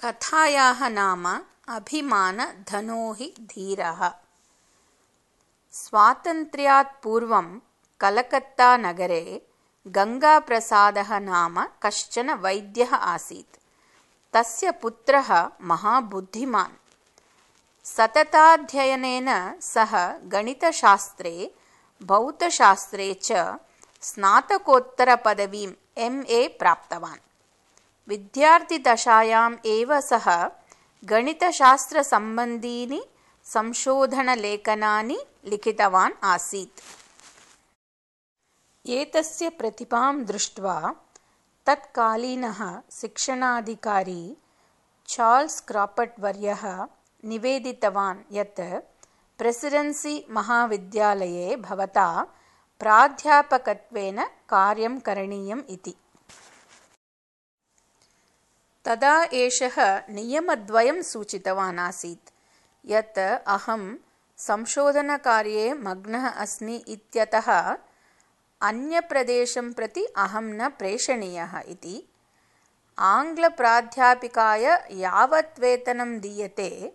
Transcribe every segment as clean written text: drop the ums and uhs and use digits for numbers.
कथायाः नाम अभिमानधनो हि धीरः। स्वातन्त्र्यात् पूर्वं कलकत्तानगरे गङ्गाप्रसादः नाम कश्चन वैद्यः आसीत्। तस्य पुत्रः महाबुद्धिमान्। सतताध्ययनेन सः गणितशास्त्रे भौतशास्त्रे च स्नातकोत्तरपदवीं MA प्राप्तवान्। विद्यार्थिदशायाम् एव सः गणितशास्त्रसम्बन्धीनि संशोधनलेखनानि लिखितवान् आसीत्। एतस्य प्रतिभां दृष्ट्वा तत्कालीनः शिक्षणाधिकारी चार्ल्स् क्राफर्ड् वर्यः निवेदितवान् यत् प्रेसिडेन्सी महाविद्यालये भवता प्राध्यापकत्वेन कार्यं करणीयम् इति। तदा एषः नियमद्वयं सूचितवान् आसीत् यत् अहं संशोधनकार्ये मग्नः अस्मि इत्यतः अन्यप्रदेशं प्रति अहं न प्रेषणीयः इति, आङ्ग्लप्राध्यापिकाय यावत् वेतनं दीयते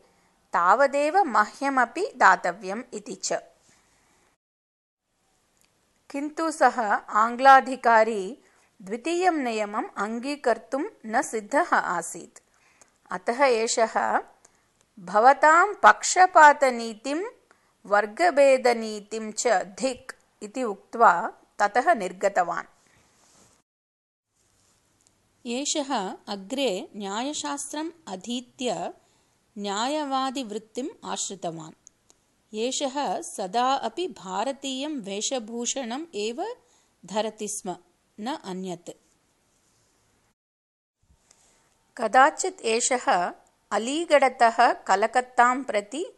तावदेव मह्यमपि दातव्यम् इति च। किन्तु सः आङ्ग्लाधिकारी द्वितीयं नियमम् अङ्गीकर्तुं न सिद्धः आसीत्। अतः एषः भवतां पक्षपातनीतिं वर्गभेदनीतिं च धिक् इति उक्त्वा ततः निर्गतवान्। एषः अग्रे न्यायशास्त्रम् अधीत्य न्यायवादिवृत्तिम् आश्रितवान्। एषः सदा अपि भारतीयं वेषभूषणम् एव धरति स्म, न अन्यत्। कदाचित् एषः अलीगढतः कलकत्तां प्रति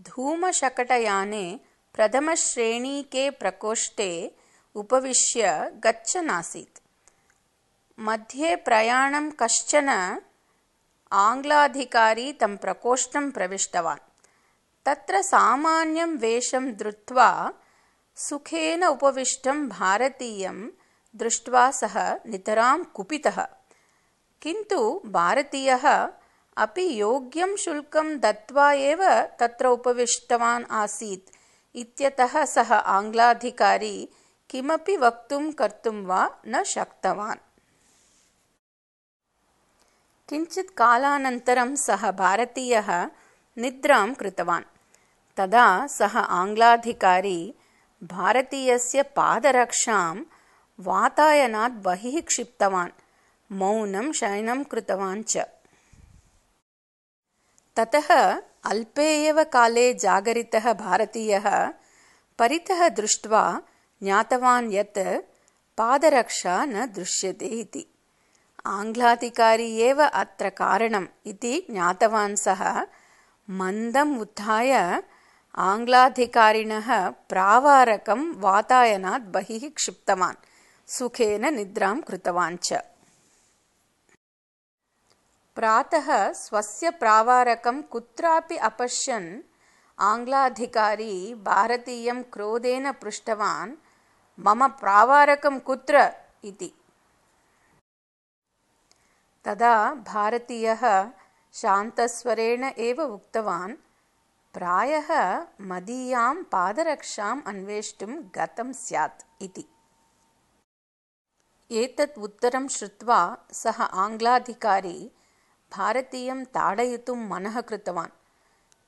धूमशकटयाने प्रथमश्रेणीके प्रकोष्ठे उपविश्य गच्छन् आसीत्। मध्ये प्रयाणं कश्चन आङ्ग्लाधिकारी तं प्रकोष्ठं प्रविष्टवान्। तत्र सामान्यं वेषं धृत्वा सुखेन उपविष्टं भारतीयं दृष्ट्वा सः नितरां कुपितः। किन्तु भारतीयः अपि योग्यं शुल्कं दत्त्वा एव तत्र उपविष्टवान् आसीत् इत्यतः सः आङ्ग्लाधिकारी किमपि वक्तुं कर्तुं वा न शक्तवान्। किञ्चित् कालानन्तरं सः भारतीयः निद्रां कृतवान्। तदा सः आङ्ग्लाधिकारी भारतीयस्य पादरक्षां वातायनात् बहिः क्षिप्तवान्, मौनं शयनं कृतवान् च। ततः अल्पे एव काले जागरितः भारतीयः परितः दृष्ट्वा ज्ञातवान् यत् पादरक्षा न दृश्यते इति। आङ्ग्लाधिकारी एव अत्र कारणम् इति ज्ञातवान् सः मन्दम् उत्थाय आङ्ग्लाधिकारिणः प्रावारकं वातायनात् बहिः क्षिप्तवान्, सुखेन निद्रां कृतवान् च। प्रातः स्वस्य प्रावारकं कुत्रापि अपश्यन् आङ्ग्लाधिकारी भारतीयं क्रोधेन पृष्टवान्, मम प्रावारकं कुत्र इति। तदा भारतीयः शान्तस्वरेण एव उक्तवान्, प्रायः मदीयां पादरक्षाम् अन्वेष्टुं गतं स्यात् इति। एतत् उत्तरं श्रुत्वा सः आङ्ग्लाधिकारी भारतीयं ताडयितुं मनः कृतवान्।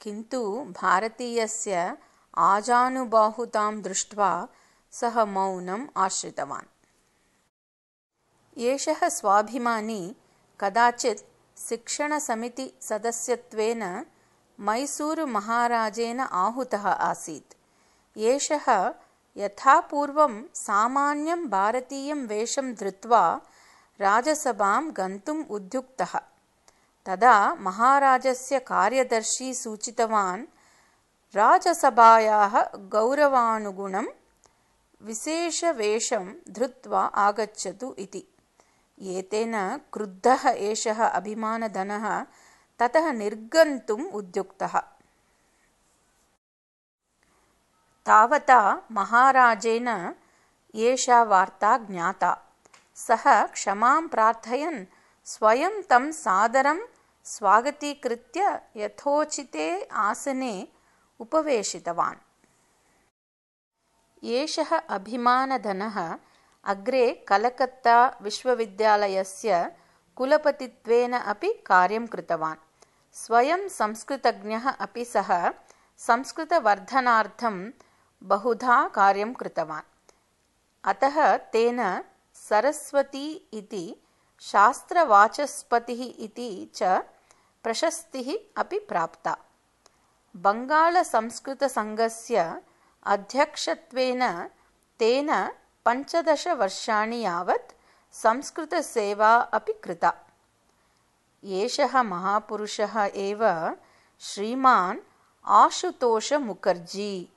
किन्तु भारतीयस्य आजानुबाहुतां दृष्ट्वा सः मौनम् आश्रितवान्। एषः स्वाभिमानी कदाचित् शिक्षणसमितिसदस्यत्वेन मैसूरुमहाराजेन आहूतः आसीत्। एषः यथापूर्वं सामान्यं भारतीयं वेषं धृत्वा राजसभां गन्तुम् उद्युक्तः। तदा महाराजस्य कार्यदर्शी सूचितवान्, राजसभायाः गौरवानुगुणं विशेषवेषं धृत्वा आगच्छतु इति। एतेन क्रुद्धः एषः अभिमानधनः ततः निर्गन्तुम् उद्युक्तः। तावता महाराजेन एषा वार्ता ज्ञाता। सः क्षमां प्रार्थयन् स्वयं तं सादरं स्वागतीकृत्य यथोचिते आसने उपवेशितवान्। एषः अभिमानधनः अग्रे कलकत्ता विश्वविद्यालयस्य कुलपतित्वेन अपि कार्यं कृतवान्। स्वयं संस्कृतज्ञः अपि सः संस्कृतवर्धनार्थं बहुधा कार्यं कृतवान्। अतः तेन सरस्वती इति शास्त्रवाचस्पतिः इति च प्रशस्तिः अपि प्राप्ता। बङ्गालसंस्कृतसङ्घस्य अध्यक्षत्वेन तेन 15 वर्षाणि यावत् संस्कृतसेवा अपि कृता। एषः महापुरुषः एव श्रीमान् आशुतोष मुखर्जी।